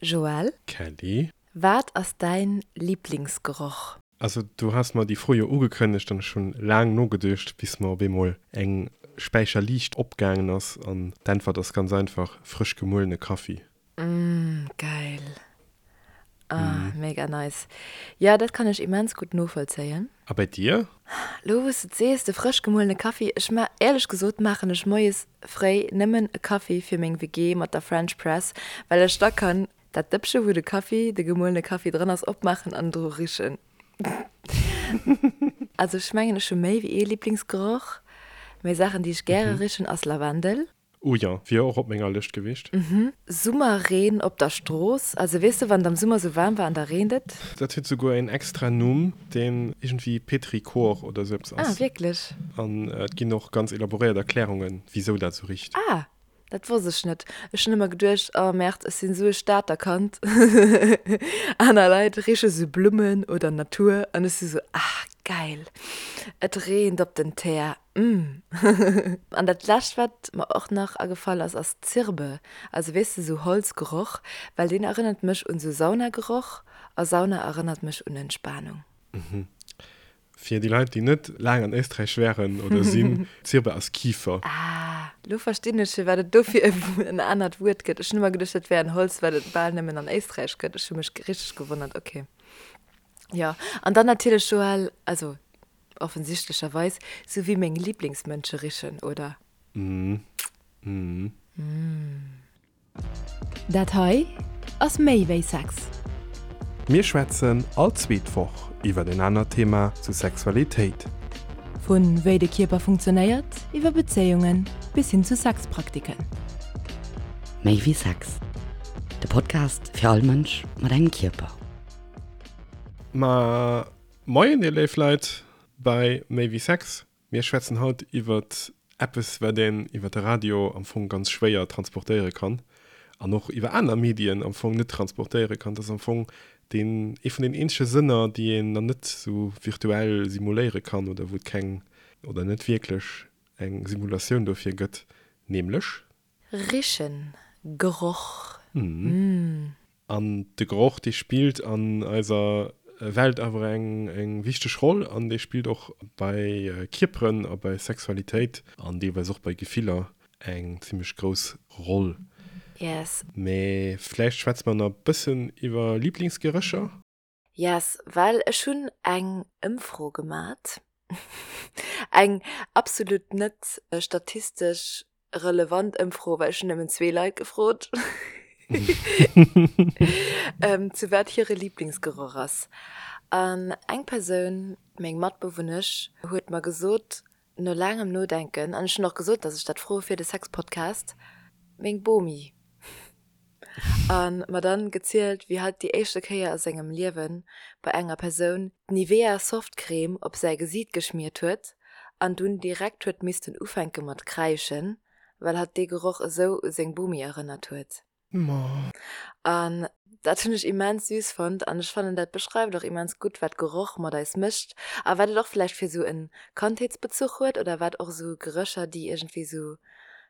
Joël? Kelly? Wat ass däin Liblingsgeroch? Also du has mer déi Fro jo ugekënnegt an ech hunn laang nogeduecht bis mer op eemol eng Späicher Liicht opgaangen ass an d'Äntwert ass ganz einfach, frësch gemuelene Kaffi. Mmh geil. Ah mega nice. Jo dat kann ech immens gutt novollzéien. A bei dir? Lo wous de et sees, de frësch gemuelene Kaffi, ech ma éierlech gesot maachen ech moies fréi nëmmen e Kaffi fir meng WG mat der French Press, well ech da kann dat Dëppche wou de Kaffi, de gemuelene Kaffi dran ass, opmaachen an dru richen. Also ech mengen ech hu méi wéi ee Liblingsgeroch, mee Saachen déi ech gäre richen ass Lavendel. Oh jo, wier och op menger Lëscht gewiescht. Summerreen op der Strooss, also weess de wann et am Summer sou waarm war an da reent et. Dat huet souguer een extra Numm, deen iergendwéi Petrichor oder sou eppes ass. Ah, wierklech? An et ginn och ganz elaboréiert Erklärungen, wisou dat sou richt. Ah, dat wosst ech net. Ech hunn ëmmer geduecht, oh Merde, ech sinn esou e Stater Kand. Aner Leit riche sou Blummen oder Natur an ech si sou, ah geil, et reent op den Teer. Umm. An dat lescht wat mer och nach agefall ass, ass Zirbe, also weess de sou Holzgeroch, well deen erënnert mech un sou Saunageroch a Sauna erënnert mech un Entspanung. Mhm. Fir déi Leit déi net laang an Éisträich wären oder sinn, Zirbe ass Kifer. Ah, lo verstinn ech firwat et dofir en anert Wuert gëtt. Ech hunn ëmmer geduecht dat wär en Holz wat et bal nëmmen an Éisträich gëtt. Ech hu mech richteg gewonnert, ok. Jo, an dann natierlech Joël, also Offensichtlecherweis, sou wéi meng Lieblingsmënsche richen, oder? Mm. Mm. Dat hei ass méi wéi Sex. Mir schwätzen all zweet Woch iwwer en anert Thema zu Sexualitéit. Vu wéi de Kierper funktionéiert, iwwer Bezéiungen bis hin zu Sexpraktiken. Méi wéi Sex, de Podcast fir all Mënsch mat engem Kierper. Ma Moien dir léif Leit bei Méi wéi Sex. Mir schwätzen haut iwwert eppes wat een iwwert de Radio am Fong ganz schwéier transportéiere kann an och iwwer aner Medien am Fong net transportéiere kann. Dat ass am Fong deen ee vun den eenzege Sënner déi een dann net sou virtuell simuléiere kann oder wou et keng oder net wierklech eng Simulatioun dofir gëtt, nämlech. Richen, Geroch, mm. An de Geroch, dee spillt an eiser Welt awer eng wichteg Roll an dee spillt och bei Kierperen a bei Sexualitéit an deelweis och bei Gefiller eng zimmlech grouss Roll. Yes. Mee vläicht schwätze mer nach e bëssen iwwer Liblingsgerécher? Yes, well ech hunn eng Ëmfro gemat, eng absolut net statistesch relevant Ëmfro, well ech hunn nëmmen zwee Leit gefrot, zu wat hire Liblingsgeroch ass. An eng Persoun, meng Matbewunnesch, huet mer gesot, no laangem Nodenken, an ech hunn och gesot, datt ech dat froe fir de Sexpodcast, meng Bomi. A mer dann gezielt, wéi hatt déi éischte Kéier a sengem Liewen bei enger Persoun d'Nivea Softcreme op säi Gesiit geschmiert huet an dunn direkt huet missten ufänke mat kräischen, well hatt dee Geroch esou u seng Bomi erënnert huet. An dat hunn ech immens süß fonnt an ech fannen dat beschreift och immens gutt wat Geroch mat eis mécht a wat et och vläicht fir esou en Kandheetsbezuch huet oder wat och esou Gerécher déi iergendwéi esou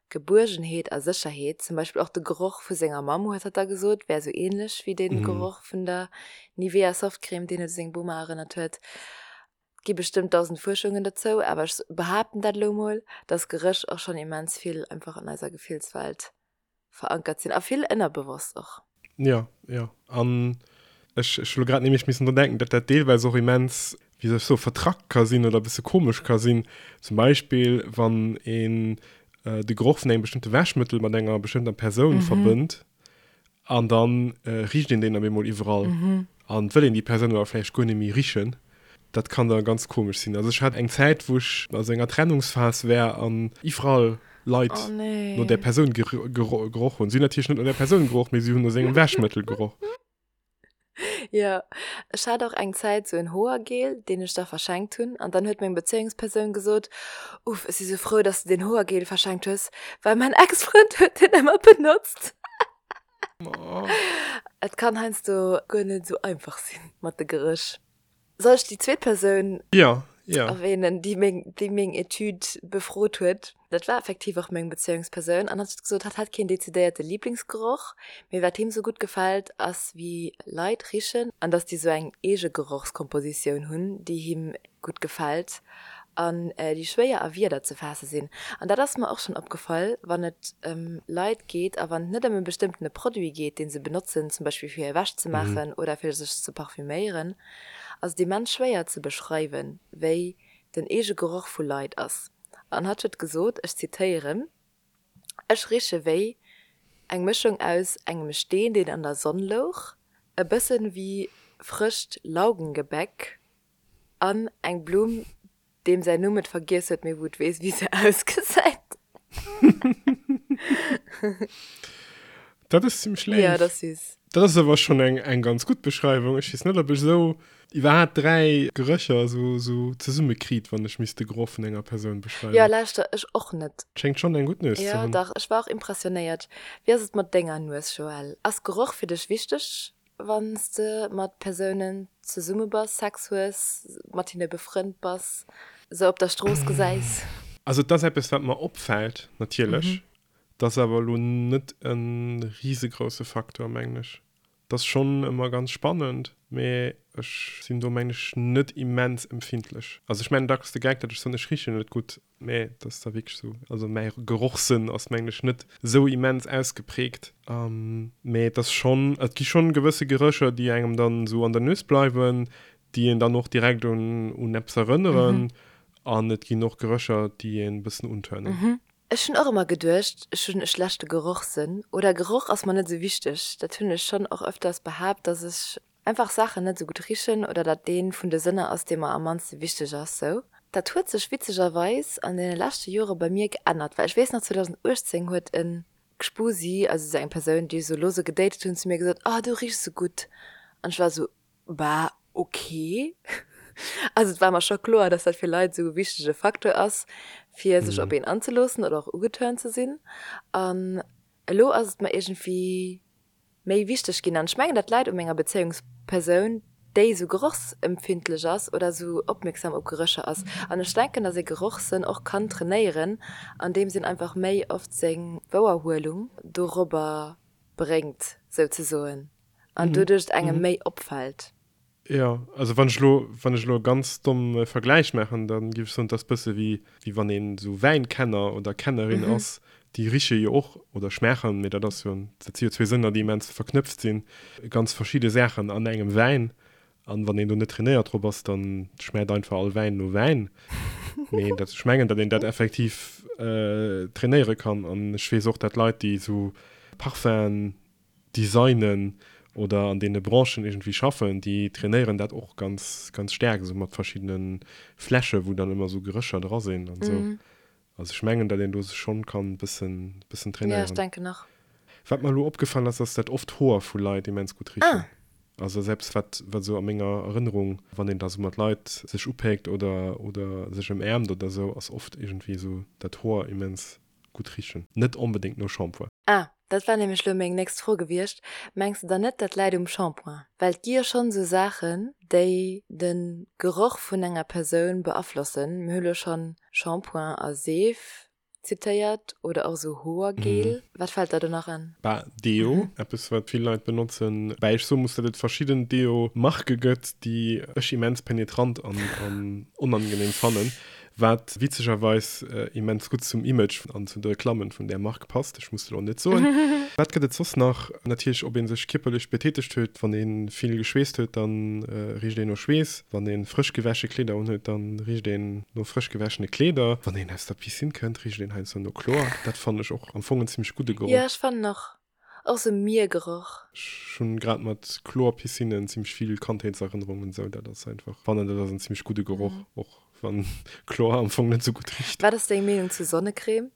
Gebuergenheet a Sécherheet, zum Beispill och de Geroch vu senger Mamm, huet hatt da gesot, wär esou ähnlech wéi de Geroch vun der Nivea Softcreme, deen et u seng Boma erënnert huet. Et gi bestëmmt 1000 Fuerschungen dozou, awer ech behaapten dat elo mol, dass Geréch och schonn immens vill einfach an eiser Gefillswelt verankert sinn a vill ënnerbewosst och. Jo, jo. An ech, ech hu lo grad nämlech missen dran denken, datt dat deelweis och immens, wéi soll ech soen, vertrackt ka sinn oder e bësse komesch ka sinn. Zum Beispill, wann een de Geroch vun engem bestëmmte Wäschmëttel mat enger bestëmmter Persoun verbënnt an da richt een deen op eemol iwwerall an et wëll een déi Persoun awer vläicht guer net méi richen. Dat kann da ganz komesch sinn. Also ech hat eng Zäit, wou ech a sou enger Trennungsphas war an iwwerall Leit Oh nee. no där Persoun geroch hunn. Si hunn natierlech net no där Persoun geroch, mee si hunn no sengem Wäschmëttel geroch. Jo, ech hat och eng Zäit sou en Hoergel, deen ech da verschenkt hunn. An dann huet meng Bezéiungspersoun gesot, Uff, ech si sou frou, dass de deen Hoergel verschenkt hues, well mäin Ex-Frënd huet deen ëmmer benotzt. Et kann heiansdo guer net sou einfach sinn mat de Geréch. Soll ech déi zweet Persoun? Jo, Erwähnen, déi meng, déi meng Etüd befrot huet. Dat war effektiv och meng Bezéiungspersoun an hatt huet gesot, hatt hätt keen dezidéierte Liblingsgeroch, mee wat him sou gutt gefält, ass wéi Leit richen an dass déi sou eng eege Gerochskompositioun hunn, déi him gutt gefält an déi schwéier a Wierder ze faasse sinn. An dat ass mer och schonn opgefall, wann et ëm Leit geet a wann et net ëm e bestëmmtene Produit geet, dee se benotzen, zum Beispill fir hir Wäsch ze maachen oder fir sech ze parfuméieren, ass et immens schwéier ze beschreiwen, wéi den eege Geroch vu Leit ass. An hatt huet gesot, ech zitéieren, Ech riche wéi eng Mëschung aus engem Steen, deen an der Sonn louch, e bëssen wéi frëscht Laugengebäck an eng Blumm, deem säin Numm et vergiess huet, mee wou et weess, wéi se ausgesäit. Dat ass zimmlech léif. Ja, dat ass süß. Dat ass awer schonn eng, eng ganz gutt Beschreiwung. Ech weess net, ob ech esou iwwerhaapt 3 Gerécher esou, esou zesumme kriit, wann ech misst de Geroch vun enger Persoun beschreiwen. Jo, lauschter, ech och net. Schéngt schonn eng gutt Nues ze Jo, hunn. dach, ech war och impressionéiert. Wéi ass et mat denger Nues, Joël? Ass Geroch fir dech wichteg, wann s de mat Persounen zesumme bass, Sex hues, mat hinne befrënnt bass, se op der Strooss gesäis? Also et ass eppes, wat mer opfält, natierlech. Et ass awer elo net e risegrousse Faktor, mengen ech. Et ass schonn ëmmer ganz spannend, mee ech sinn do, mengen ech, net immens empfindlech. Also ech maachen dacks de Geck, datt ech soen, ech richen net gutt, mee et ass da wierklech esou. Also mäi Gerochssënn ass, mengen ech, net esou immens ausgeprägt. Mee et ass schonn, et gi schonn gewësse Gerécher, déi engem dann esou an der Nues bleiwen, déi een dann och direkt un un eppes erënneren. An et ginn och Gerécher, déi een e bëssen unturnen. Ech hunn och ëmmer geduecht, ech hunn e schlechte Gerochssënn oder Geroch ass mer net esou wichteg. Dat hunn ech schonn och ëfters behaapt, dass ech einfach Saachen net esou gutt richen oder dat dee vun de Sënner ass, dee mer am mannste wichteg ass. Sou. Dat huet sech witzegerweis an deene leschte Jore bei mir geännert, well ech weess nach 2018 huet e Gspusi, also esou eng Persoun, déi ech esou lose gedatet hunn, zu mir gesot, Oh, du richs esou gutt. An ech war esou, Bah, ok. Also et war mer scho kloer, dass dat fir Leit esou e wichtege Facteur ass, fir sech op een anzeloossen oder och ugeturnt ze sinn. An elo ass et mer iergendwéi méi wichteg ginn. An ech mengen, dat läit u menger Bezéiungspersoun, déi esou gerochsempfindlech ass oder esou opmierksam op Gerécher ass. An ech denken, dass ee Gerochssënn och kann trainéieren, andeems een einfach méi oft seng Wouerhuelung dorobber bréngt, souzesoen. An doduerch et engem méi opfält. Jo, also wann ech elo, wann ech elo e ganz domme Vergläich maachen, da géif ech soen, et ass bësse wéi, wéi wann een esou Wäinkenner oder Kennerin ass, déi riche jo och oder schmaachen, mee dat ass jo, dat si jo zwee Sënner, déi immens verknëpft sinn, ganz verschidde Saachen an engem Wäin. An wann een do net trainéiert drop ass, dann schmaacht einfach all Wäin no Wäin. Mee dat, ech mengen, datt een dat effektiv trainéiere kann. An ech weess och, datt Leit, déi esou Parfum'en designen oder an deene Branchen iergendwéi schaffen, déi trainéieren dat och ganz, ganz staark, esou mat verschiddene Fläsche wou dann ëmmer esou Gerécher dra sinn an esou. Also ech mengen, datt een do sech schonn kann e bëssen, bëssen trainéieren. Jo, ech denken och. Wat mer elo opgefall ass, ass dat oft Hoer vu Leit immens gutt richen. Also ass eppes, wat, wat esou a menger Erënnerung, wann een da esou mat Leit sech upéckt oder, oder sech ëmäermt oder esou, ass oft iergendwéi esou dat Hoer immens gutt richen. Net onbedéngt no Shampoing. Ah, dat war nämlech lo meng nächst Fro gewiescht. Mengs de dann net, dat läit um Shampoing? Well et gi jo schonn esou Saachen, déi de Geroch vun enger Persoun beaflossen. Mir hu lo schonn Shampoing a Seef zitéiert oder och esou Hoergel. Wat fält der do nach an? Bah, Deo, eppes wat vill Leit benotzen. Bäi ech soe muss, datt et verschidden Deo-Marke gëtt, déi ech immens penetrant an onangenehm fannen. Wat witzegerweis immens gutt zum Image an zu de Reklammen vun där Mark passt, ech muss et elo net soen. Wat gëtt et soss nach? Natierlech ob ee sech kierperlech betätegt huet, wann ee vill geschweesst huet, da richt een no Schweess, wann ee frësch gewäsche Kleeder unhuet, da richt een no frësch gewäschene Kleeder, wann een aus der Piscine kënnt, richt een heiansdo no Chlor. Dat fannen ech och am Fong en zimmlech gudde Geroch. Jo, ech fannen och. Och sou Miergeroch. Ech hunn grad mat Chlorpiscinnen zimmlech vill Kandheetserënnerungen sou dat ass einfach, fannen dat ass en zimmlech gudde Geroch, och wann Chlor am Fong net sou gutt richt. Wat ass deng Meenung zu Sonnecreme?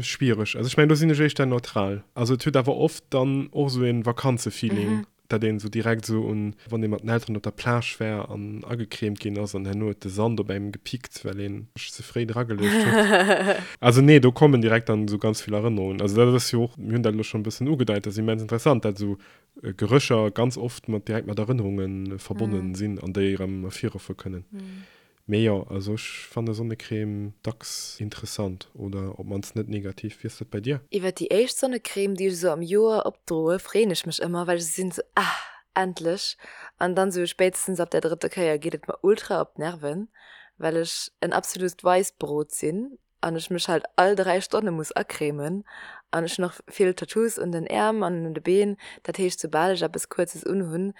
Schwiereg, also ech mengen do sinn ech éischter neutral, also et huet awer oft dann och sou een Vakanzefeeling. Dat een esou direkt esou un, wann ee mat den Elteren op der Plage war an agecremt ginn ass an herno huet de Sand op engem gepickt, well een sech ze fréi drageluecht huet. Also nee, do kommen direkt dann esou ganz vill Erënnerungen. Also dat ass jo och, mir hunn dat elo schonn e bëssen ugedeit, dat ass immens interessant, dat esou Gerécher ganz oft mat direkt mat Erënnerunge verbonnen sinn an déi erëm ervirruffe kënnen. Mee jo, also ech fanne Sonnecrème dacks interessant oder op mannst net negativ. Wéi ass dat bei dir? Iwwer déi éischt Sonnecrème, déi ech esou am Joer opdroe, freeën ech mech ëmmer, well ech esou sinn, esou, ah, endlech! An dann esou spéitstens ab der drëtter Kéier geet et mer ultra op d'Nerven, well ech en absolut Weissbrot sinn an ech mech halt all 3 Stonne muss acremen an ech hunn och vill Tattoos un den Äerm an un de Been, dat heescht soubal ech eppes kuerzes unhunn,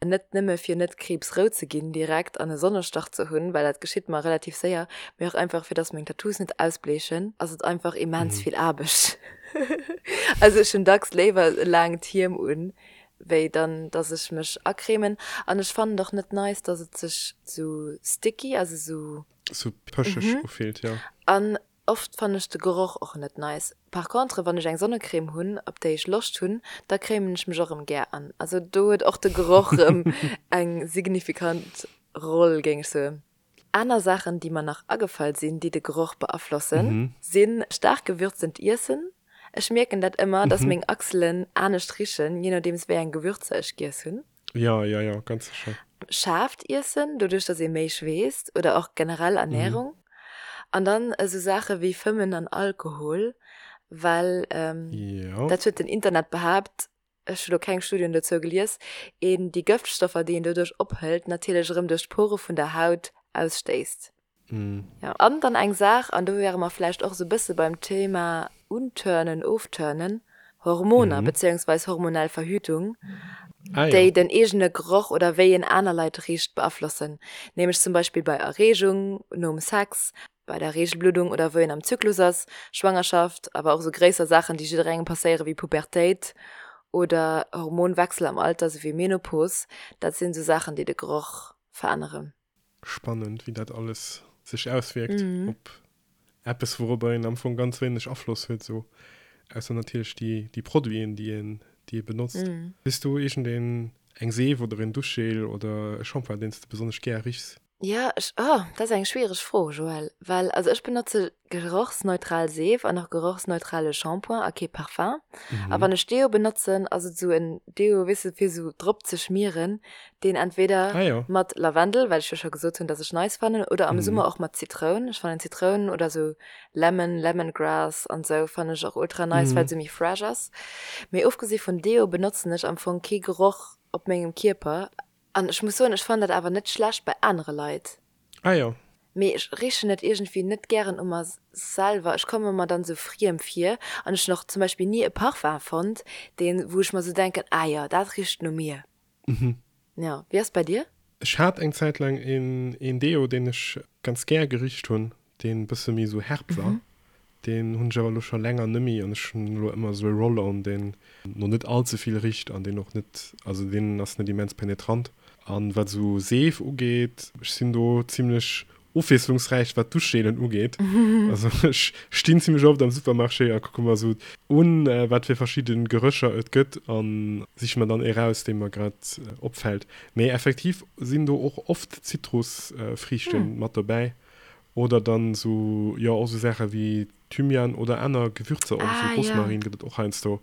net nëmme fir net kriibsrout ze ginn direkt an e Sonnestach ze hunn, well dat geschitt mer relativ séier, mee och einfach fir dass meng Tattoos net ausbleechen, ass et einfach immens vill Aarbecht. Also ech hunn dacks léiwer e laangt Hiem un, wéi dann dass ech mech acremen an ech fannen et och net nice, dass et sech sou sticky, also sou. Sou pëscheg ufillt, jo. An oft fannen ech de Geroch och net nice. Par contre wann ech eng Sonnecrème hunn op déi ech Loscht hunn, da cremen ech mech och rëm gär an. Also do huet och de Geroch rëm eng signifikant Roll géing ech soen. Aner Saachen déi mer nach agefall sinn, déi de Geroch beaflossen, sinn staark gewürztent Iessen. Ech mierken dat ëmmer, dass meng Achselen anescht richen, je nodeems wéi eng Gewürzer ech giess hunn. Jo, jo, jo, ganz sécher. Schaarft Iessen, doduerch dass ee méi schweesst oder och generell Ernährung. An dann esou Saache wéi Fëmmen an Alkohol, well dat huet den Internet behaapt, ech hu lo keng Studien dozou gelies, een déi Gëftstoffer, déi een doduerch ophëlt, natierlech erëm duerch d'Pore vun der Haut ausstéisst. Jo, an dann eng Saach, an do wäre mer vläicht och esou e bësse beim Thema Unturnen, Ofturnen, Hormoner beziéungsweis hormonell Verhütung, déi den eegene Geroch oder wéi een aner Leit richt beaflossen, nämlech zum Beispill bei Erreegung, nom Sex, bei der Reegelbluddung oder wou een am Zyklus ass, Schwangerschaft, awer och esou gréisser Saachen, déi jidderengem passéieren, wéi Pubertéit oder Hormonwechsel am Alter, esou wéi Menopos, dat sinn esou Saachen, déi de Geroch veränneren. Spannend, wéi dat alles sech auswierkt op eppes, wourobber een am Fong ganz wéineg Afloss huet, esou, ausser natierlech déi, déi Produiten, déi een, déi ee benotzt. Hues du iergendeen, eng Seef oder een Duschgel oder e Shampoing, deen s de besonnesch gär richs? Jo, ech, oh, dat ass eng schwiereg Fro, Joël, well, also ech benotze gerochsneutral Seef an och gerochsneutrale Shampoing a kee Parfum. A wann ech Deo benotzen, ass et esou en Deo, weess de, fir esou drop ze schmieren, deen entweder Ah jo. mat Lavendel, well ech jo scho gesot hunn, dass ech nice fannen, oder am Summer och mat Zitroun. Ech fannen Zitroun oder esou Lemon, Lemongrass an esou fannen ech och ultra nice, well et esou méi fresh ass. Mee ofgesi vun Deo benotzen ech am Fong kee Geroch op mengem Kierper. An ech muss soen, ech fannen dat awer net schlecht bei anere Leit. Ah jo. Mee ech richen et iergendwéi net gären u mer selwer. Ech komme mer dann esou friem vir. An ech hunn och zum Beispill ni e Parfum fonnt, deen, wou ech mer esou denken, ah jo, dat richt no mir. Jo, wéi ass et bei dir? Ech hat eng Zäit laang een, een Deo, deen ech ganz gär gericht hunn, deen e bësse méi esou herb war. Deen hunn ech awer elo scho länger nëmmi an ech hunn elo ëmmer esou e Roll-on, deen no net all ze vill richt an deen och net, also deen ass net immens penetrant. An wat esou Seef ugeet, ech sinn do zimlech ofwiesslungsräich wat Duschgelen ugeet. Also ech stinn zimlech oft am Supermarché a kucke mer esou un, wat fir verschidde Gerécher et gëtt a siche mer dann ee raus, dee mer grad opfält. Mee effektiv sinn do och oft Zitrusfriichte mat dobäi. Oder dann sou, jo, och sou Saache wéi Thymian oder aner Gewürzer, och sou Rosmarin gëtt et och heiansdo.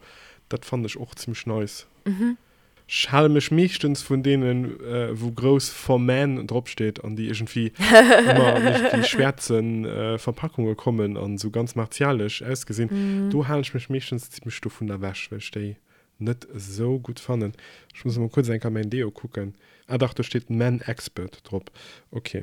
Dat fannen ech och zimmlech nice. Ech hale mech meeschtens vun deenen, wou grouss For Men dropsteet an déi iergendwéi ëmmer an iergendwéi schwäerze Verpackunge kommen an sou ganz martialesch ausgesinn. Do halen ech mech meeschtens zimmlech dovun ewech, well ech déi net esou gutt fannen. Ech muss emol kuerz eng Kéier mäin Deo kucken. Ah dach, do steet Men Expert drop. Ok.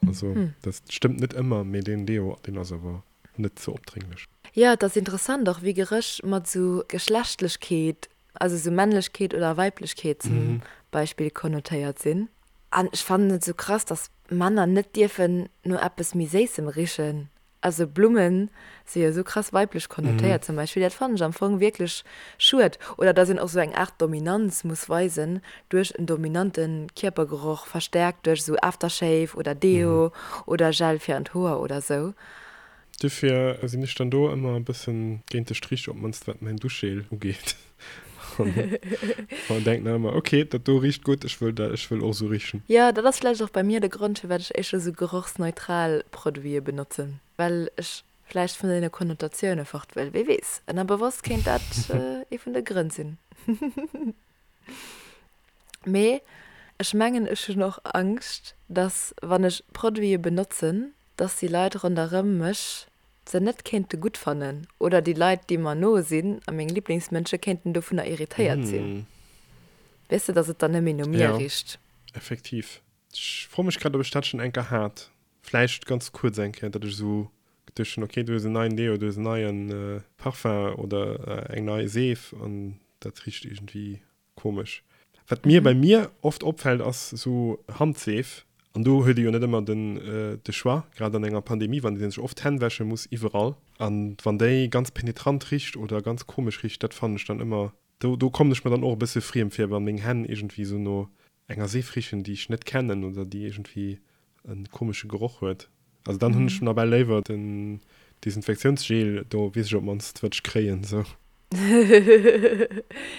Also dat stëmmt net ëmmer, mee deen Deo, deen ass awer net ze opdrénglech. Jo, et ass interessant och wéi Geréch mat sou Geschlechtlechkeet, also sou Männlechkeet oder Weiblechkeet zum Beispill konnotéiert sinn. An ech fannen et sou krass, dass Männer net dierfen no eppes méi Séissem richen. Also Blummen si jo esou krass weiblech konnotéiert zum Beispill, dat fannen ech am Fong wierklech schued. Oder dass een och sou eng Aart Dominanz muss weisen duerch en dominante Kierpergeroch, verstärkt duerch esou Aftershave oder Deo oder Gel fir an d'Hoer oder sou. Dofir sinn ech dann do ëmmer e bëssen géint de Strich, op d'mannst wat mäin Duschgel ugeet. An denken dann ëmmer, ok, dat do richt gutt, ech wëll dat, ech wëll och esou richen. Jo, dat ass vläicht och bei mir de Grond, firwat ech éischter esou gerochsneutral Produite benotzen, well ech vläicht vun deene Konnotatioune fort wëll. Wie weess, ënnerbewosst kéint dat ee vun de Grënn sinn. Mee. Ech mengen ech hunn och Angscht, dass wann ech Produite benotzen, dass déi Leit ronderëm mech se net kéinte gutt fannen oder déi Leit déi mer no sinn a meng Liblingsmënsche kéinten dovunner irritéiert sinn. Weess de, dass et dann net méi no mir Jo, richt. effektiv. Ech froe mech grad, ob ech dat schonn eng Kéier hat. Vläicht ganz kuerz eng Kéier, datt ech esou geduecht hunn, okay, du hues en neien Deo, du hues en neie Parfum oder eng nei Seef an dat richt iergendwéi Komesch. Wat mir bei mir oft opfällt ass sou Handseef, an do huet ee jo net ëmmer den de Choix, grad an enger Pandemie wann ee sech oft d'Hänn wäsche muss iwwerall, an wann déi ganz penetrant richt oder ganz komesch richt, dat fannen ech dann ëmmer, do do kommen ech mer dann och e bësse friem vir, wann meng Hänn iergendwéi sou no enger Seef richen déi ech net kennen oder déi iergendwéi e komesche Geroch huet. Also dann hunn ech nawell léiwer den Desinfektiounsgel, do weess ech op d'mannst wat ech kréien sou.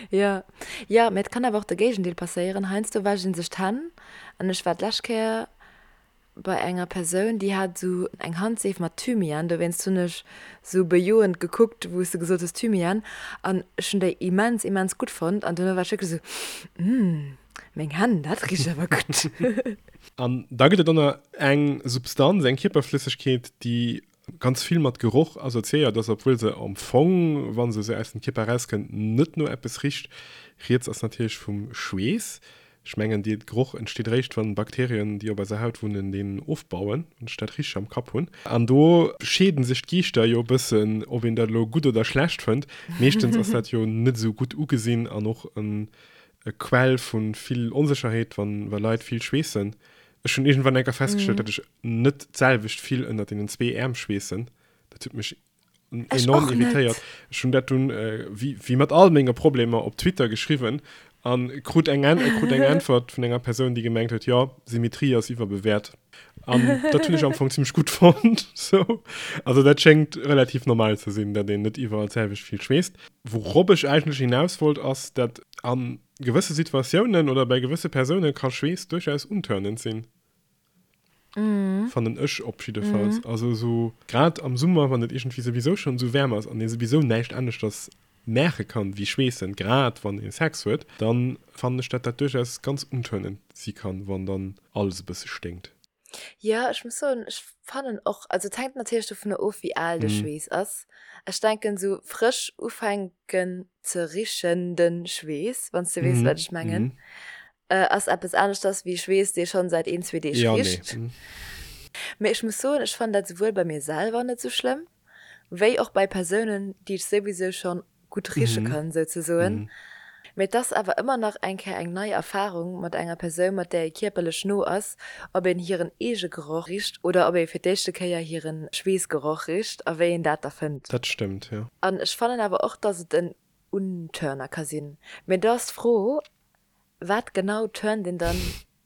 Jo, jo, mee et kann awer och de Géigendeel passéieren. Heiansdo wäscht een sech d'Hänn an ech war d'lescht Kéier bei enger Persoun, déi hat esou eng Handseef mat Thymian, dowéinst hunn ech esou bejoend gekuckt, wou s de gesot hues Thymian, an ech hunn déi immens, immens gutt fonnt an duerno war ech wierklech esou, Mmh. Meng Hänn, dat richt awer gutt. An da gëtt et och nach eng Substanz, eng Kierperflëssegkeet, déi ganz vill mat Geroch assoziéiert ass, obwuel se am Fong, wa se esou aus dem Kierper erauskënnt, net no eppes richt. Rieds ass natierlech vum Schweess. Ech mengen, dee Geroch entsteet eréischt, wann Bakterien, déi op eiser Haut wunnen, deen ofbauen, wann ech dat richteg am Kapp hunn. An do scheeden sech d'Geeschter jo e bëssen, ob een dat elo gutt oder schlecht fënnt. Meeschtens ass dat jo net esou gutt ugesinn an och e e Quell vu vill Onsécherheet, wann wa Leit vill schweessen. Ech hunn iergendwann eng Kéier festgestallt, datt ech net d'selwecht vill ënnert deenen zwee Äerm schweessen. Dat huet mech Ech enorm och net. irritéiert. Ech hunn dat dunn, wéi wéi mat all menge Problemer, op Twitter geschriwwen a krut eng Än krut eng Äntwert vun enger Persoun, déi gemengt huet, jo, Symmetrie ass iwwerbewäert. An dat hunn ech am Fong zimmlech gutt fonnt. Sou. Also dat schéngt relativ normal ze sinn, datt een net iwwerall d'selwecht vill schweesst. Wourop ech eigentlech hinaus wollt, ass, datt a gewësse Situatiounen oder bei gewësse Persoune ka Schweess duerchaus untörnend sinn. Fannen ech op jiddefalls. Also esou grad am Summer, wann et iergendwéi souwisou schonn esou waarm ass an ee souwisou näischt aneschters maache kann wéi schweessen, grad wann ee Sex huet, dann fannen ech, datt dat duerchaus ganz untörnend si kann, wann dann alles e bësse sténkt. Jo, ech muss soen, ech fannen och, also et hänkt natierlech dovunner of wéi al de Schweess ass. Ech denken esou frësch ufänken ze richende Schweess, wann s de weess wat ech mengen, ass eppes aneschters wéi Schweess dee schonn säit een, zwee Deeg richt. Mee ech muss soen, ech fannen dat souwuel bei mir selwer net esou schlëmm, wéi och bei Persounen déi ech souwisou schonn gutt riche kann souzesoen. Mee et ass awer ëmmer nach eng Kéier eng nei Erfarung mat enger Persoun, mat där ee kierperlech no ass, ob een hiren eege Geroch richt oder ob ee fir d'éischte Kéier hire Schweessgeroch richt a wéi een dat da fënnt. Dat stëmmt, jo. An ech fannen awer och, dass et en Untörner ka sinn. Mee do ass d'Fro, Wat genau turnt een dann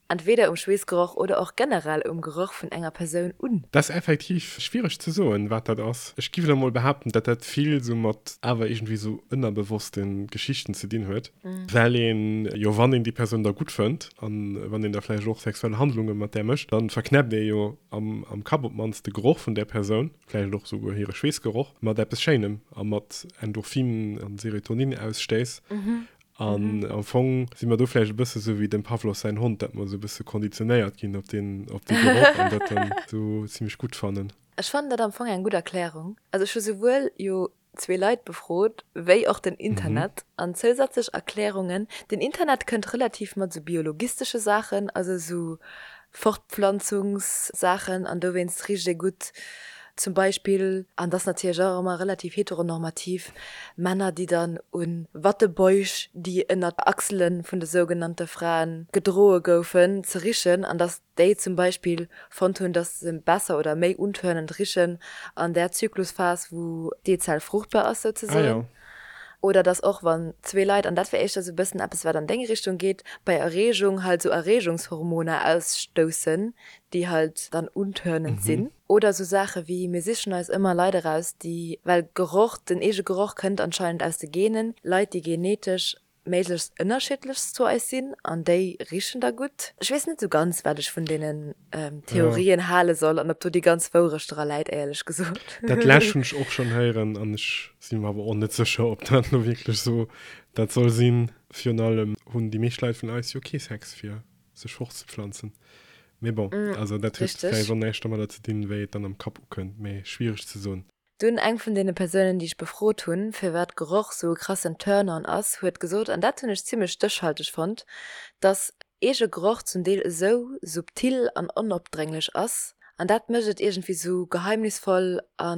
entweder um Schweessgeroch oder och generell um Geroch vun enger Persoun un? Dat ass effektiv schwiereg ze soen, wat dat ass. Ech giff elo mol behaapten, dat dat vill sou mat awer iergendwéi sou ënnerbewosste Geschichten ze dinn huet, well een jo, wann een déi Persoun da gutt fënnt an wann een da vläicht och sexuell Handlunge mat där mécht, dann verknäppt ee jo am Kapp op d'mannst de Geroch vun där Persoun, vläicht och souguer hire Schweessgeroch, mat eppes Schéinem a mat Endorphin an Serotoninausstéiss. An am Fong si mer do vläicht e bësse sou wéi dem Pavlov säin Hond, dat mer sou e bësse konditionéiert ginn op deen, op dee Geroch an dat dann sou zimmlech gutt fannen. Ech fannen dat am Fong eng gutt Erklärung. Also ech hu souwuel jo zwee Leit befrot, wéi och den Internet. An zousätzlech Erklärungen, den Internet kënnt relativ mat sou biologistesche Saachen, also sou Fortpflanzungssaachen an dowéinst richt ee gutt zum Beispill, an dat ass natierlech och ëmmer relativ heteronormativ, Männer déi dann u Wattebäusch, déi ënnert Achsele vun de sougenannte Fraen gedroe goufen, ze richen an datt déi zum Beispill fonnt hunn, datt se besser oder méi untörnend richen an där Zyklusphas wou d'Eezell fruchtbar ass souzesoen. Oder dass och wann zwee Leit, an dat wär éischter esou e bëssen eppes wat an deng Richtung geet, bei Erreegung halt esou Erreegungshormoner ausstoussen, déi halt dann untörnend sinn. Oder esou Saache wéi, mir sichen eis ëmmer Leit eraus, déi, well Geroch, den eege Geroch kënnt anscheinend aus de Genen, Leit déi genetesch méiglechst ënnerschiddlechst zu eis sinn an déi richen da gutt. Ech weess net esou ganz, wat ech vun deenen Theorien hale soll an ob do déi ganz Wourecht dra läit, éierlech gesot. Dat lescht hunn ech och schonn héieren an ech si mer awer och net sécher, ob dat elo wierklech esou dat soll sinn. Virun allem hunn déi meescht Leit vun eis jo kee Sex fir. Sech fortzepflanzen. Mee bon, also dat huet vläicht och näischt domadder ze dinn, wéi et dann am Kapp ukënnt, mee schwiereg ze soen. Dunn eng vun deene Persounen, déi ech befrot hunn, firwat Geroch sou e krassen Turn-on ass, huet gesot, an dat hunn ech zimmlech stéchhalteg fonnt, dass eege Geroch zum Deel esou subtil an onopdrénglech ass, an dat mécht et iergendwéi sou geheimnisvoll a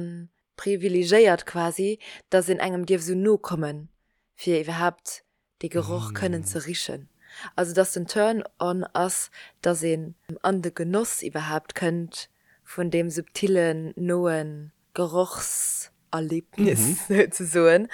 privilegéiert quasi, dass een engem dierf sou no kommen, fir iwwerhaapt dee Geroch kënnen ze richen. Also dass den Turn on ass, dass een an de Genoss iwwerhaapt kënnt vun deem subtillen, noe Gerochserlebnis souzesoen.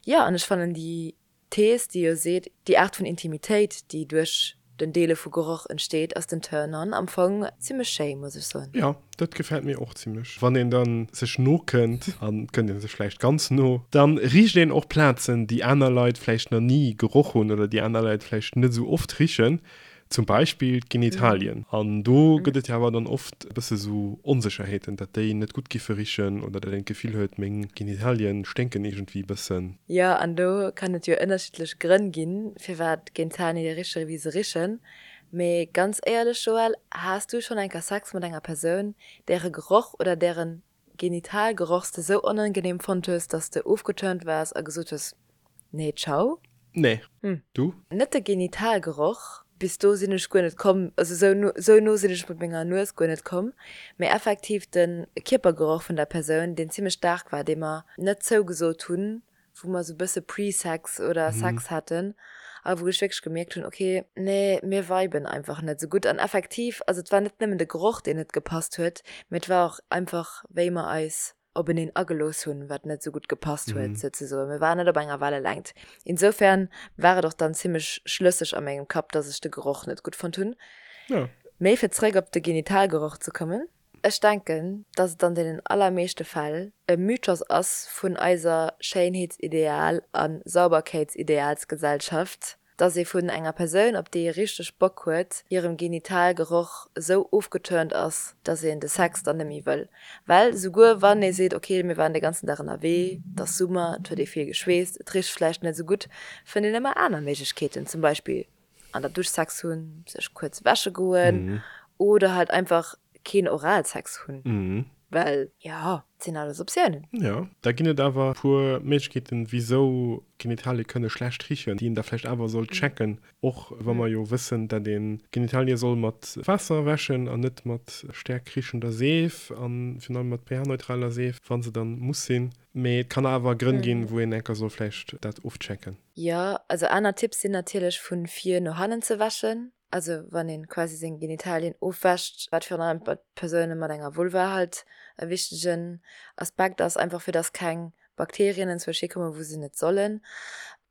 Jo, an ech fannen déi Thees, déi jo seet, déi Aart vun Intimitéit, déi duerch den Deele vu Geroch entsteet, ass den Turn on am Fong zimmlech schéi, muss ech soen. Jo, dat gefält mir och zimmlech. Wann een dann sech no kënnt, an et kënnt een sech vläicht ganz no, dann richt een och Plazen, déi aner Leit vläicht nach ni geroch hunn oder déi aner Leit vläicht net esou oft richen, zum Beispill d'Genitalien. An do gëtt et jo awer dann oft e bësse sou Onsécherheeten, datt déi net gutt giffe richen oder datt een d'Gefill huet, meng Genitalien sténken iergendwéi e bëssen. Jo, an do kann et jo ënnerschiddlech Grënn ginn, firwat Genitalien riche wéi se richen. Mee ganz éierlech Joël, has du schonn eng Kéier Sex mat enger Persoun, däre Geroch oder dären Genitalgeroch s de sou onangenehm fonnt hues, dass de ofgeturnt waars a gesot hues, Nee, ciao? Nee. Du? Net de Genitalgeroch, bis do sinn ech guer net komm, also sou no, sou no sinn ech mat menger Nues guer net komm, mee effektiv de Kierpergeroch vun der Persoun, deen zimmlech staark war, dee mer net zougesot hunn, wou mer sou bësse Pre-Sex oder Sex haten a wou ech wierklech gemierkt hunn, ok, nee, mir viben einfach net sou gutt. An effektiv, also et war net nëmmen de Geroch, deen net gepasst huet, mee et war och einfach, wéi mer eis openeen agelooss hunn, wat net sou gutt gepasst huet, souzesoen. Mir waren net op enger Wellelängt. Insofern war et och dann zimmlech schlësseg a mengem Kapp, dass ech de Geroch net gutt fonnt hunn. Mee fir zréck op de Genitalgeroch ze kommen. Ech denken, dass et an deenen allermeeschte Fäll e Mythos ass vun eiser Schéinheetsideal a Sauberkeetsidealsgesellschaft, dass ee vun enger Persoun, op déi ee richteg Bock huet, hirem Genitalgeroch esou ofgeturnt ass, dass een de Sex dann net méi wëll. Well souguer wann ee seet, ok, mir waren de ganzen Dag ënnerwee, et ass Summer, et huet ee vill geschweesst, et richt vläicht net esou gutt, fënnt een ëmmer aner Méiglechkeeten, zum Beispill an der Dusch Sex hunn, sech kuerz wäsche goen oder halt einfach keen Oralsex hunn, well jo, et sinn alles Optiounen. Jo, da ginn et awer e puer Méiglechkeeten, wisou Genitalie kënne schlecht richen, déi een da vläicht awer sollt checken, och wa mer jo wëssen, dat ee Genitalie soll mat Waasser wäschen an net mat staark richender Seef a virun allem mat pH-neutraler Seef, wa se dann muss sinn. Mee et kann awer Grënn ginn, wou een enker soll vläicht dat ofchecken. Jo, also aner Tipps sinn natierlech vun vir no hannen ze wäschen, also wann een quasi seng Genitalien ofwäscht, wat virun allem bei Persoune mat enger Vulva halt e wichtegen Aspekt ass, einfach fir dass keng Bakterien enzwousch hikommen wou se net sollen.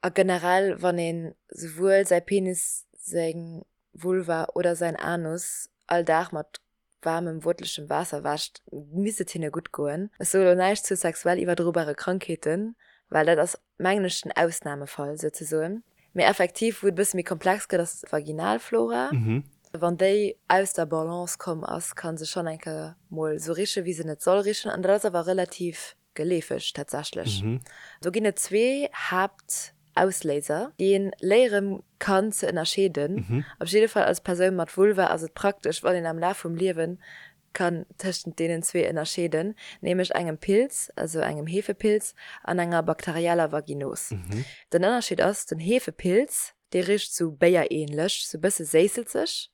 A generell wann een souwuel säi Penis, seng Vulva oder säin Anus all Dag mat waarmem, wuertlechem Waasser wäscht, misst et hinne gutt goen. Ech soe lo näischt zu sexuell iwwerdrobare Krankheeten, well dat ass, mengen ech, den Ausnamefall souzesoen. Mee effektiv, wou et e bësse méi komplex gëtt, ass d'Vaginalflora. Wann déi aus der Balance komm ass, ka se schonn eng Kéier mol esou richen, wéi se net soll richen. An dat ass awer relativ Geleefeg tatsächlech. Do ginn et zwee Haaptausléiser, déi een léiere kann ze ënnerscheeden. Op jidde Fall als Persoun mat Vulva ass et praktesch, wann een am Laf vum Liewen kann tëschent deenen zwee ënnerscheeden, nämlech engem Pilz, also engem Hefepilz, an enger bakterieller Vaginos. Den Ënnerscheed ass, den Hefepilz, dee richt sou béierähnlech, sou bësse séisselzeg,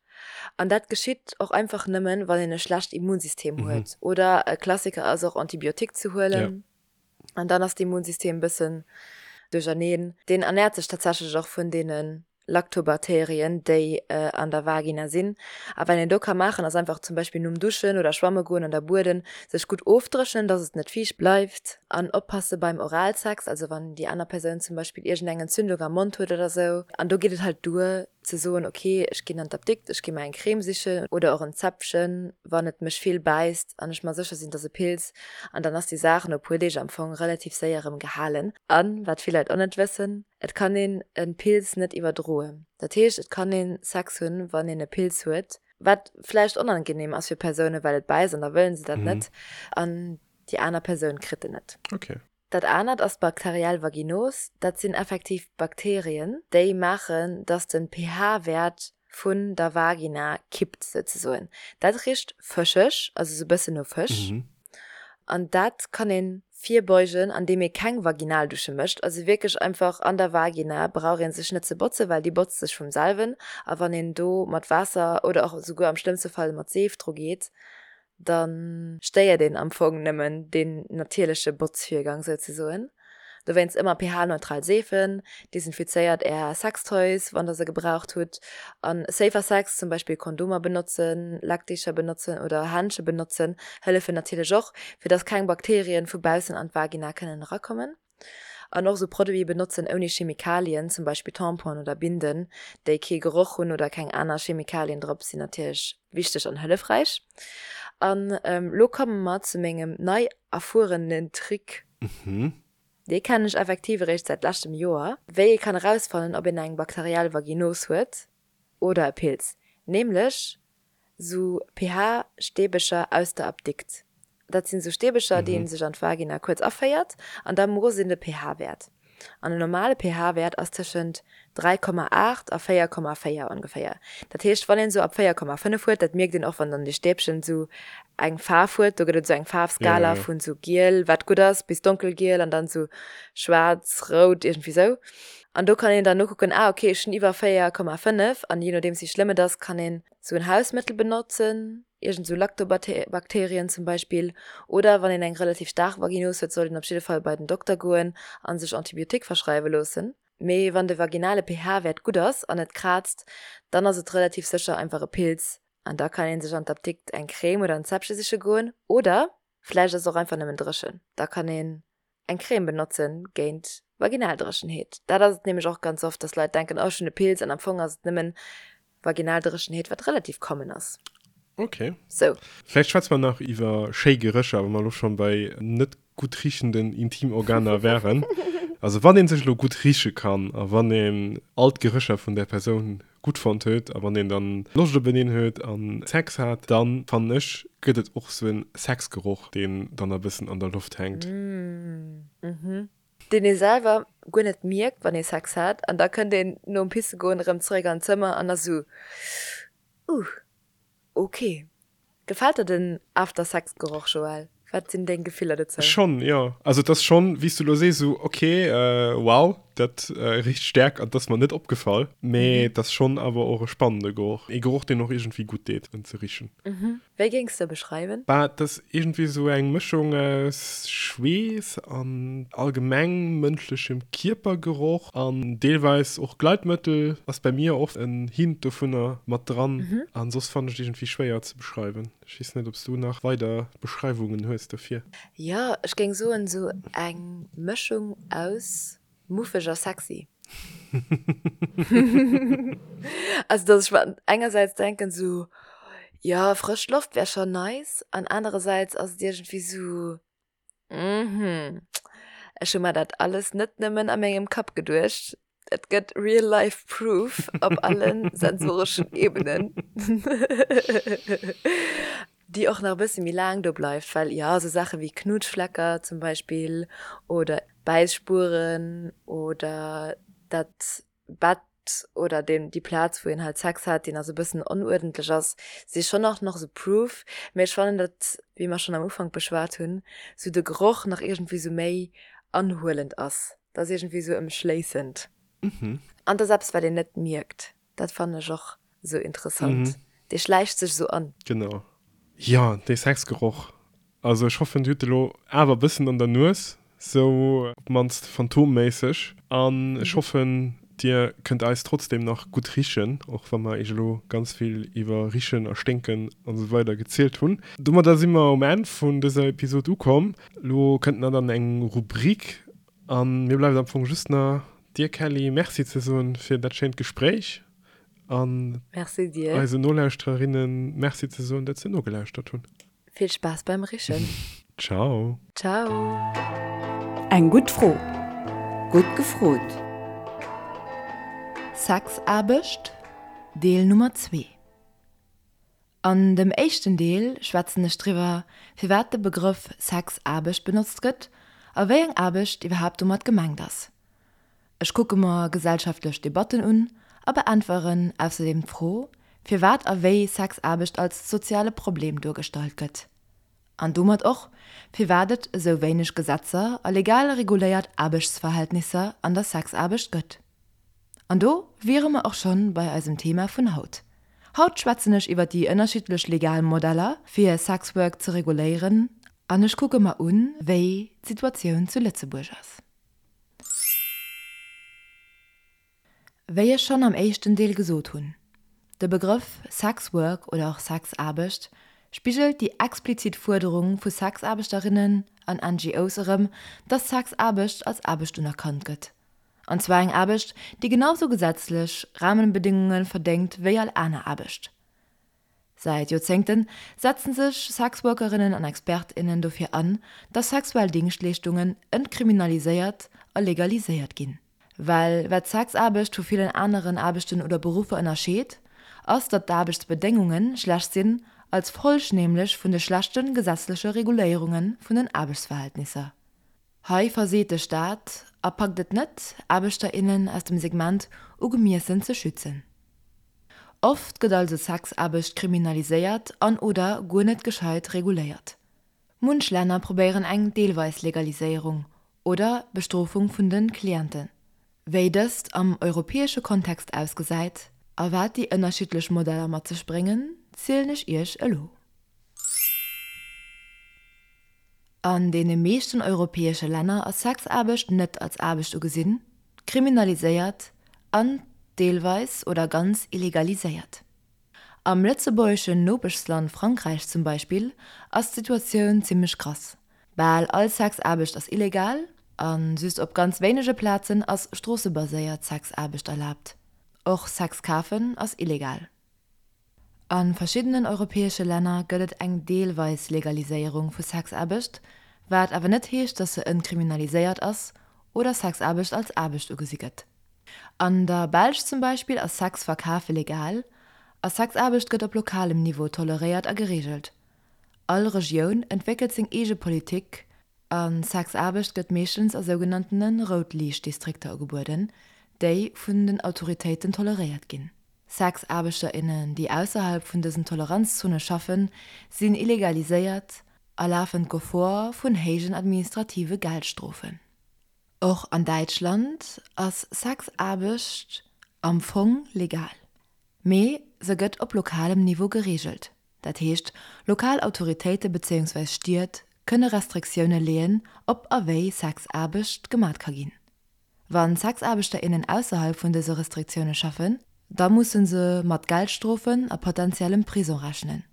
An dat geschitt och einfach nëmmen, wann een e schlecht Immunsystem huet. Oder e Klassiker ass och Antibiotique ze huelen. An dann ass d'Immunsystem e bëssen duercherneen. Deen ernäert sech tatsächlech och vun deene Lactobaterien, déi an der Vagina sinn. A wat een do ka maachen, ass einfach zum Beispill nom Duschen oder Schwamme goen an der Bueden sech gutt ofdréchnen, dass et net fiicht bleift. An oppasse beim Oralsex, also wann déi aner Persoun zum Beispill iergendeng Entzündung am Mond huet oder sou. An do geet et halt duer, ze soen, ok, ech ginn an d'Apdikt, ech gi mer eng Crème sichen oder och en Zäpfchen, wann et mech vill bäisst an ech mer sécher sinn, et ass e Pilz, an dann ass déi Saach no e puer Deeg am Fong relativ séier erëm gehalen. An, wat vill Leit och net wëssen, et kann een e Pilz net iwwerdroen. Dat heescht, et kann ee Sex hunn, wann een e Pilz huet, wat vläicht onangenehm ass fir Persounen, well et bäisst an da wëllen se dat net, an déi aner Persoun kritt en net. Dat anert ass d'bakteriell Vaginos. Dat sinn effektiv Bakterien, déi maachen, dass de pH-Wäert. vun der Vagina kippt souzesoen. Dat richt fëscheg, also sou bëssen no Fësch. An dat kann een virbeugen an deem ee keng Vaginaldusche mécht. Also wierklech einfach an der Vagina brauch ee sech net ze botzen, well déi botzt sech vum selwen. A wann een do mat Waasser oder och souguer am schlëmmste Fall mat Seef dru geet, da stéiert een am Fong nëmmen deen natierleche Botzvirgang souzesoen. Dowéinst ëmmer pH-neutral Seefen, desinfizéiert är Sextoys, wann der se gebraucht hutt, an safer Sex, zum Beispill Kondomer benotzen, Leckdicher benotzen oder Händsche benotzen, hëllefen natierlech och, fir dass keng Bakterien vu baussen an d'Vagina kënnen erakommen. An och sou Produite benotzen ouni Chemikalien, zum Beispill Tamponen oder Binden, déi kee Geroch hunn oder keng aner Chemikalien drop, sinn natierlech wichteg an hëllefräich. An lo komme mer zu mengem nei erfuerenen Trick. Dee kennen ech effektiv eréischt säit leschtem Joer. Wéi ee kann erausfannen, ob een eng bakteriell Vaginos huet oder e Pilz. Nämlech sou pH-Stäbecher aus der Apdikt. Dat sinn sou Stäbecher, déi een sech an d'Vagina kuerz aféiert an da moosst een de pH-Wäert. An en normale pH-Wäert ass tëschent 3,8 a 4,4 ongeféier. Dat heescht, wann een esou ab 4,5 huet, dat mierkt een och, wann dann dee Stäbchen esou eng Faarf huet, do gëtt et esou eng Faarfskala vun esou giel, wat gutt ass, bis donkelgiel an dann esou schwaarz, rout, iergendwéi esou. An do kann een dann nokucken, ah okay, ech hunn iwwer 4,5 an jee nodeems wéi schlëmm et ass, kann een esou en Hausmëttel benotzen, iergend esou Lactobakterien zum Beispill. Oder wann een eng relativ staark Vaginose huet, sollt een op jidde Fall bei den Dokter goen a sech Antibiotique verschreiwe loossen. Mee wann de vaginale pH-Wäert gutt ass an et kraazt, dann ass et relativ sécher einfach e Pilz an da kann een sech an d'Apdikt eng Crème oder en Zäppche siche goen. Oder vläicht ass et och einfach nëmmen dréchen, da kann een eng Crème benotzen géint Vaginaldréchenheet. Dat ass et nämlech och ganz oft, dass Leit denken, oh ech hunn e Pilz an am Fong ass et nëmmen Vaginaldréchenheet, wat relativ common ass. Ok. Sou. Vläicht schwätze mer nach iwwer schéi Gerécher, wa mer elo schonn bei net gutt riechenden Intimorganer wären. Also wann ee sech elo gutt riche kann a wann een all d'Gerécher vun där Persoun gutt fonnt huet a wann een dann Loscht openeen huet a Sex hat, dann fannen ech gëtt et och sou en Sexgeroch, deen dann e bëssen an der Loft hänkt. Deen ee selwer guer net mierkt wann ee Sex hat an da kënnt een nom pisse goen erëm zeréck an d'Zëmmer an ass sou, Uh, ok. Gefält der den After Sex Geroch, Joël? Wat sinn deng Gefiller dozou? Schonn, jo. Also et ass schonn, wéi s du elo sees, esou ok, wow, dat richt staark an et ass mer net opgefall. Mee et ass schonn awer och e spannende Geroch. Ee Geroch, deen och iergendwéi gutt deet, en ze richen. Wéi géings de e beschreiwen? Bah, et ass iergendwéi esou eng Mëschung aus Schweess an allgemeng mënschlechem Kierpergeroch an deelweis och Gleitmëttel ass bei mir oft en Hint dovunner mat dran. An soss fannen ech et iergendwéi schwéier ze beschreiwen. Ech weess net, ob s du nach weider Beschreiwungen hues dofir. Jo, ech géing soen esou eng Mëschung aus muffeg a sexy. Also dass ech mer engersäits denken esou, jo frësch Loft wär schon nice an anerersäits ass et iergendwéi esou, mhm, ech hu mer dat alles net nëmmen a mengem Kapp geduecht, et gëtt real life proof op alle sensoreschen Ebenen. Déi och nach e bësse méi laang do bleift, well jo, esou Saache wéi Knutschflecker zum Beispill oder Bäisspueren oder dat Bett oder deen, déi Plaz, wou een halt Sex hat, déi nach esou e bëssen onuerdentlech ass, si schonn och nach esou Proof. Mee ech fannen, datt, wéi mer schonn am Ufank beschwat hunn, esou de Geroch nach iergendwéi esou méi anhuelend ass. Dat ass iergendwéi esou ëmschléissend. An dat ass eppes, wat een net mierkt. Dat fannen ech och sou interessant. Dee schläicht sech sou an. Genau. Jo, dee Sexgeroch. Also ech hoffen dir hutt e lo awer e bëssen an der Nues, sou op d'mannst phantomméisseg. An ech hoffen dir kënnt eis trotzdem nach gutt richen, och wa mer iech elo ganz vill iwwer Richen a Sténken an esou weider gezielt hunn. Domadder si mer um Enn vun dëser Episod ukomm. Lo kënnt nach dann eng Rubrik An mir bleift am Fong just na dir Kelly Merci ze soen fir dat schéint Gespréich an Merci dir. eisen Nolauschtererinnen Merci ze soen, dat se nogelauschtert hunn. Vill Spaass beim Richen. Ciao. Ciao. Eng gutt Fro. Gutt gefrot. Sexaarbecht, Deel Nummer 2. An dem éischten Deel schwätzen ech driwwer, firwat de Begrëff Sexaarbecht benotzt gëtt a wéi eng Aarbecht iwwerhaapt domat gemengt ass. Ech kucke mer gesellschaftlech Debatten un. A beäntweren ausserdeem d'Fro, firwat a wéi Sexaarbecht als soziale Problem duergestallt gëtt. An domat och, firwat et esou wéineg Gesetzer a legal reguléiert Aarbechtsverhältnisser an der Sexaarbecht gëtt. An do wiere mer och schonn bei eisem Thema vun haut. Haut schwätzen ech iwwer déi ënnerschiddlech legal Modeller, fir Sexwork ze reguléieren an ech kucke mer un, wéi d'Situatioun zu Lëtzebuerg ass. Wéi ech schonn am éischten Deel gesot hunn, de Begrëff Sexwork oder och Sexaarbecht spigelt déi explizit Fuerderung vu Sexaarbechterinnen an NGOs erëm, dass Sexaarbecht als Aarbecht unerkannt gëtt. An zwar eng Aarbecht, déi genau sou gesetzlech Rahmenbedingunge verdéngt wéi all aner Aarbecht. Säit Joerzéngte setzen sech Sexworkerinnen an Expert, innen dofir an, dass sexuell Dingschtleeschtungen entkriminaliséiert a legaliséiert ginn. Well wat Sexaarbecht vu villen aneren Aarbechten oder Beruffer ënnerscheet, ass datt d'Aarbechtsbedéngunge schlecht sinn, als Folg nämlech vun de schlechte gesetzleche Reguléierunge vun den Aarbechtsverhältnisser. Hei verseet de Staat a packt et net, Aarbechter, innen aus dem Segment ugemiessen ze schützen. Oft gëtt also Sexaarbecht kriminaliséiert an oder guer net gescheit reguléiert. Munch Länner probéieren eng deelweis Legaliséierung oder Bestrofung vun de Clienten. Wéi dëst am europäesche Kontext ausgesäit a wat déi ënnerschiddlech Modeller mat sech bréngen, zielen ech iech elo. An deene meeschten europäesche Länner ass Sexaarbecht net als Aarbecht ugesinn, kriminaliséiert an deelweis oder ganz illegaliséiert. Am lëtzebuergeschen Nopeschsland Frankräich zum Beispill ass d'Situatioun zimmlech krass, Bal all Sexaarbecht ass illegal a just op ganz wéinege Plazen ass stroossebaséiert Sexaarbecht erlaabt. Och Sex kafen ass illegal. A verschiddenen europäesche Länner gëtt et eng deelweis Legaliséierung vu Sexaarbecht, wat awer net heescht, datt se entkriminaliséiert ass oder Sexaarbecht als Aarbecht ugesi gëtt. An der Belsch zum Beispill ass Sex verkafe legal a Sexaarbecht gëtt op lokalem Niveau toleréiert a gereegelt. All Regioun entwéckelt seng eege Politik a Sexaarbecht gëtt meeschtens a sougenanntene Rout-Liicht-Distrikter ugebueden, déi vun den Autoritéiten toleréiert ginn. Sexaarbechter, innen, déi ausserhalb vun dësen Toleranzzone schaffen, sinn illegaliséiert a lafen d'Gefor vun héijen administrative Geldstrofen. Och an Däitschland ass Sexaarbecht am Fong legal, mee se gëtt op lokalem Niveau gereegelt. Dat heescht, lokal Autoritéite bezéiungsweis Stied kënne Restriktioune leeën, ob a wéi Sexaarbecht gemat ka ginn. Wann Sexaarbechter, innen ausserhalb vun dëse Restriktioune schaffen, da musse se mat Geldstrofen a potentiellem Prison rechnen.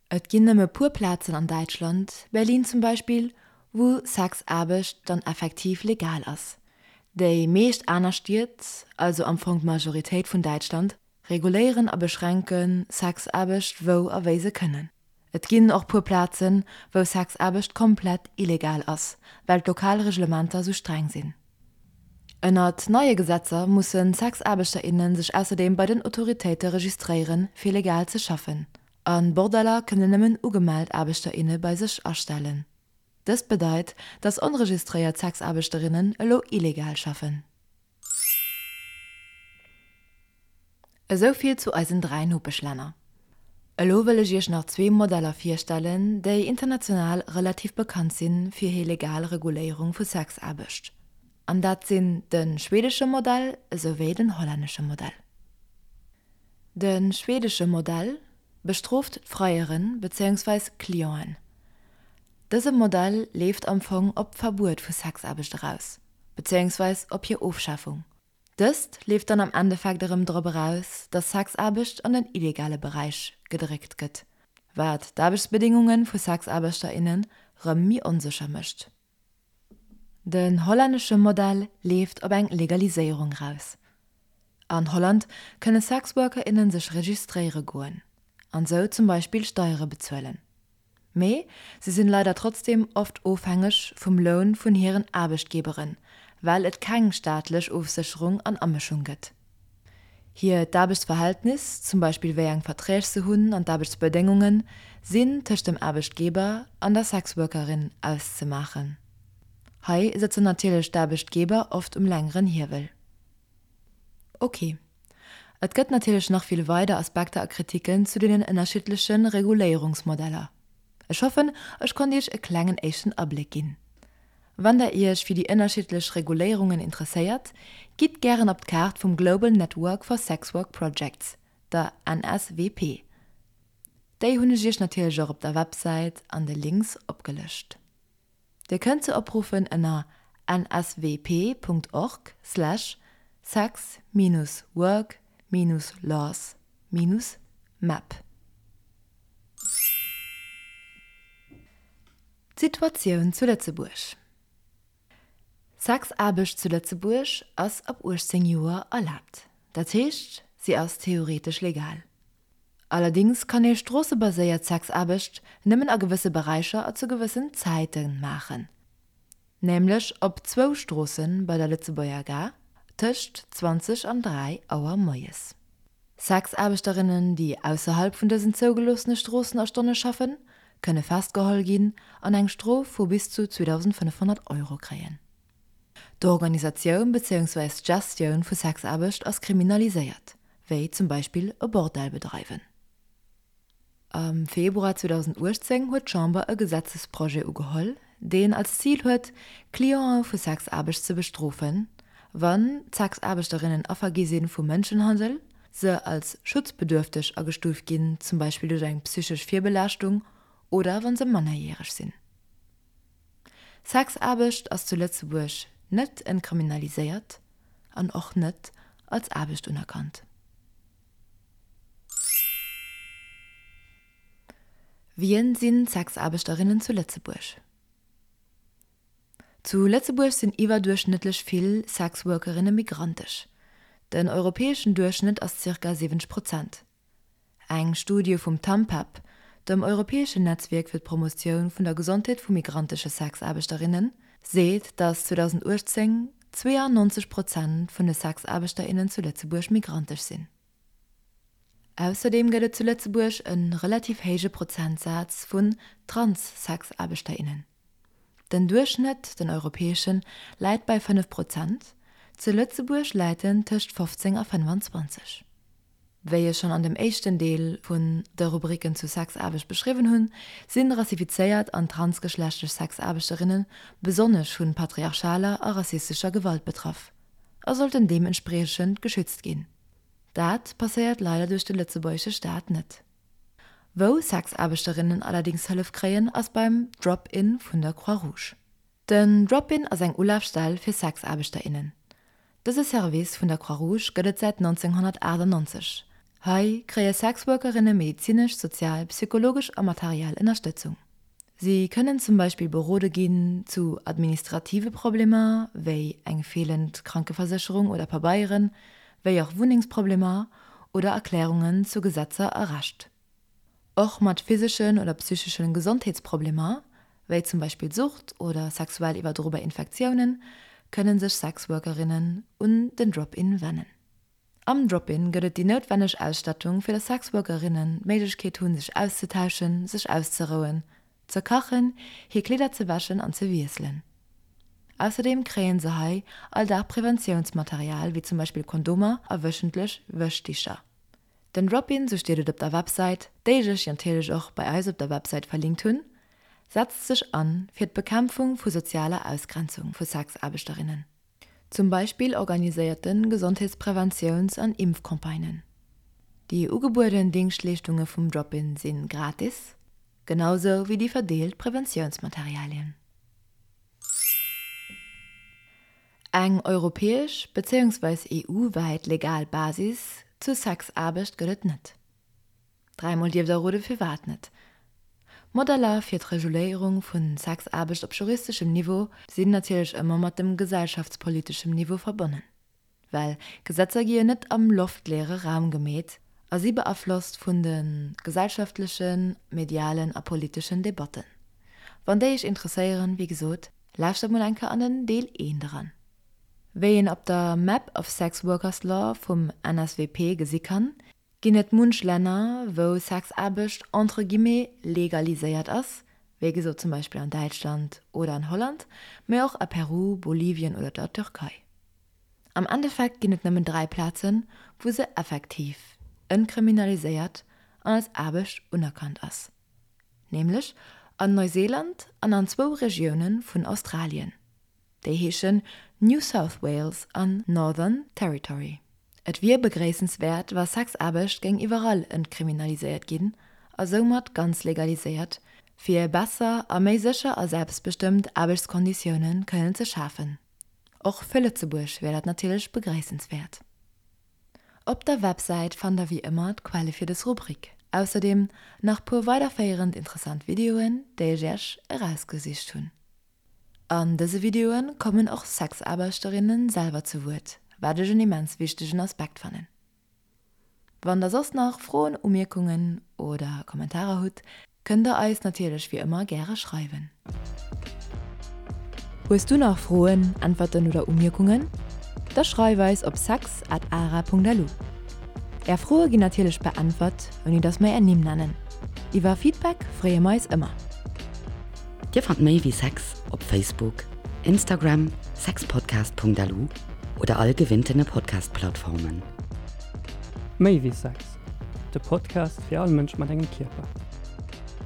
Et ginn nëmme puer Plazen an Däitschland, Berlin zum Beispill, wou Sexaarbecht dann effektiv legal ass. Déi meescht aner Stied, also am Fong d'Majoritéit vun Däitschland, reguléieren a beschränke Sexaarbecht wou a wéi se kënnen. Et ginn och puer Plazen, wou Sexaarbecht komplett illegal ass, well d'lokal Reglementer sou streng sinn. Ënnert neie Gesetzer musse Sexaarbechter, inne sech ausserdeem bei den Autoritéite registréieren, fir legal ze schaffen. A Bordeller kënnen nëmmen ugemellt Aarbechter, inne bei sech astellen. Dëst bedeit, dass onregistréiert Sexaarbechterinnen elo illegal schaffen. Esou vill zu eisen 3 Nopeschlänner. Elo wëll ech iech nach zwee Modeller virstellen, déi international relativ bekannt sinn fir hir legal Reguléierung vu Sexaarbecht. An dat sinn de schwedesche Modell esouwéi den hollännesche Modell. De schwedesche Modell bestrooft d'Freieren bezéiungsweis Clienten. Dëse Modell leeft am Fong op d'Verbuet vu Sexaarbecht eraus, bezéiungsweis op hir Ofschafung. Dëst leeft dann am Endeffekt erëm drop eraus, dass Sexaarbecht an den illegale Beräich gedréckt gëtt, wat d'Aarbechtsbedéngunge vu Sexaarbechter, innen rëm méi onsécher mécht. Den hollännesche Modell leeft op eng Legaliséierung eraus. An Holland kënne Sexworker, innen sech registréiere goen an sou zum Beispill Steiere bezuelen. Mee se sinn leider trotzdem oft ofhängeg vum Loun vun hiren Aarbechtgeberen, well et keng staatlech Ofsécherung an Amëschung gëtt. Hiert d'Aarbechtsverhältnis, zum Beispill wéi eng Verträg se hunn an d'Aarbechtsbedéngungen, sinn tëscht dem Aarbechtgeber an der Sexworkerin auszemaachen. Hei sëtzen natierlech d'Aarbechtgeber oft um längeren Hiewel. Ok. Et gëtt natierlech nach vill weider Aspekter a Kritiken zu deenen ënnerschiddleche Reguléierungsmodeller. Ech hoffen, ech konnt Iech e klengen éischten Abléck ginn. Wann der Iech fir déi ënnerschiddlech Reguléierungen interesséiert, gitt gären op d'Kaart vum Global Network for Sex Work Projects, der NSWP. Déi hunn ech Iech natierlech och op der Websäit an de Links opgelëscht. Dir kënnt se opruffen ënner nswp.org slash sex minus work minus laws minus map. D'Situatioun zu Lëtzebuerg Sexaarbecht zu Lëtzebuerg ass ab 18 Joer erlaabt. Dat heescht, si ass theoretesch legal. Allerdéngs kann ee stroossebaséiert Sexaarbecht nëmmen a gewësse Beräicher a zu gewëssen Zäite maachen, nämlech op zwou Stroosse bei der Lëtzebuerger Gare tëscht 20 an 3 Auer moies. Sexaarbechterinnen, déi ausserhalb vun dësen zougeloossene Stroossen a Stonne schaffen, kënne festgeholl ginn an eng Strof vu bis zu 2.500 Euro kréien. D'Organisatioun bezéiungsweis d'Gestioun vu Sexaarbecht ass kriminaliséiert, wéi zum Beispill e Bordell bedreiwen. Am Februar 2018 huet d'Chamber e Gesetzesprojet ugeholl, deen als Zil huet, Clientë vu Sexaarbecht ze bestrofen, wann d'Sexaarbechterinnen Affer gi si vu Mënschenhandel, se als schutzbedürfteg agestuuft ginn, zum Beispill duerch eng psychesch Virbelaaschtung, oder wa se mannerjäreg sinn. Sexaarbecht ass zu Lëtzebuerg net entkriminaliséiert an och net als Aarbecht unerkannt. Wien sinn d'Sexaarbechterinnen zu Lëtzebuerg? Zu Lëtzebuerg sinn iwwerduerchschnëttlech vill Sexworkerinne migrantesch. Den europäeschen Duerchschnëtt ass zirka 70 Prozent. Eng Studie vum TAMPEP, dem europäeschen Netzwierk fir d'Promotioun vun der Gesondheet vu migrantesche Sexaarbechterinnen, seet, datt 2018 92 Prozent vun de Sexaarbechter, innen zu Lëtzebuerg migrantesch sinn. Ausserdeem gëtt et zu Lëtzebuerg e relativ héije Prozentsaz vun Trans-Sexaarbechter, innen. Den Duerchschnëtt, den europäeschen, läit bei 5 Prozent, zu Lëtzebuerg läit en tëscht 15 a 25. Wéi ech schonn an dem éischten Deel vun de Rubriken zu Sexaarbecht beschriwwen hunn, sinn rassifizéiert an transgeschlechtlech Sexaarbechterinne besonnesch vu patriarchaler a rassistescher Gewalt betraff a sollten deementspriechend geschützt ginn. Dat passéiert leider duerch de lëtzebuergesche Staat net. Wou Sexaarbechterinnen allerdéngs Hëllef kréien, ass beim Drop-in vun der Croix-Rouge. Den Drop-in ass eng Ulafstell fir Sexaarbechter, innen. Dëse Service vun der Croix-Rouge gëtt et säit 1998. Hei kréie Sexworkerinne medezinesch, sozial, psychologesch a materiell Ënnerstëtzung. Si kënnen zum Beispill berode ginn zu administrative Problemer, wéi eng feelend Krankeversécherung oder Pabeieren, wéi och Wunnengsproblemer oder Erklärungen zu Gesetzer a Recht. Och mat physeschen oder psycheschen Gesondheetsproblemer, wéi zum Beispill Sucht oder sexuell iwwerdrobar Infektiounen, kënnen sech Sexworkerinnen un den Drop-In wennen. Am Drop-In gëtt et déi noutwenneg Ausstattung, fir dass Sexworkerinnen d'Méiglechkeet hunn, sech auszetauschen, sech auszerouen, ze kachen, hir Kleeder ze wäschen an ze wiesselen. Ausserdeem kréien se hei all Dag Preventiounsmaterial, wéi zum Beispill Kondomer a wëchentlech Wäschdicher. Den Drop-In, sou steet et op der Websäit, déi ech iech natierlech och bei eis op der Websäit verlinkt hunn, setzt sech an fir d'Bekämpfung vu sozialer Ausgrenzung vu Sexaarbechterinnen. Zum Beispill organiséiert en Gesondheetspreventiouns an Impfcampagnen. Déi ugebueden Dingschtleeschtunge vum Drop-In si gratis, genau sou wéi déi verdeelt Preventiounsmaterialien. Eng europäesch bezéiungsweis EU-wäit legal Basis zur Sexaarbecht gëtt et net. Dräimol dierft der rode firwat net. Modeller fir d'Reguléierung vu Sexaarbecht op juristeschem Niveau sinn natierlech ëmmer mat dem gesellschaftspoliteschem Niveau verbonnen. Well Gesetzer gi jo net am loftleere Raum gemeet a si beaflosst vun de gesellschaftlechen, medialen a politeschen Debatten. Wann déi iech interesséieren, wéi gesot, lauschtert mol eng Kéier an den Deel 1 eran. Wéi een op der Map of Sex Workers Law vum NSWP gesi kann, ginn et munch Länner, wou Sexaarbecht entre guillemets legaliséiert ass, wéi gesot zum Beispill an Däitschland oder an Holland, mee och a Peru, Bolivien oder der Türkei. Am Endeffekt ginn et nëmmen 3 Plazen, wou se effektiv entkriminaliséiert an als Aarbecht unerkannt ass, nämlech an Neuseeland an an zwou Regioune vun Australien, déi heeschen New South Wales an Northern Territory. Et wier begréissenswäert, wa Sexaarbecht géing iwwerall entkriminaliséiert ginn a soumat ganz legaliséiert, fir besser a méi sécher a selbstbestëmmt Aarbechtskonditioune kënnen ze schafen. Och fir Lëtzebuerg wär dat natierlech begréissenswäert. Op der Websäit fannt der wéi ëmmer d'Quelle fir dës Rubrik, ausserdeem nach puer weiderféierend interessant Videoen, déi ech iech erausgesicht hunn. An dëse Videoe kommen och Sexaarbechterinnen selwer zu Wuert, wat ech en immens wichtegen Aspekt fannen. Wann der soss nach Froen, Umierkungen oder Kommentarer hutt, kënnt der eis natierlech wéi ëmmer gäre schreiwen. Hues du nach Froen, Äntwerten oder Umierkungen? Da schreif eis op sex at ara.lu. Är Froe ginn natierlech beäntwert, ouni dass mer är Nimm nennen. Iwwer Feedback freeë mer eis ëmmer. Dir fannt méi wéi Sex op Facebook, Instagram, sexpodcast.lu oder all gewinntene Podcast-Plattformen. Méi wéi Sex, de Podcast fir all Mënsch mat engem Kierper.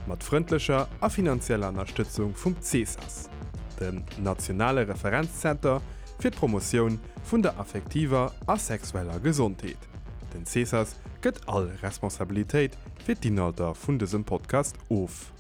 Mat frëndlecher a finanzieller Ënnerstëtzung vum CESAS, dem nationale Referenzzenter fir d'Promotioun vun der affektiver a sexueller Gesondheet. Den CESAS gëtt all Responsabilitéit fir d'Inhalter vun dësem Podcast of.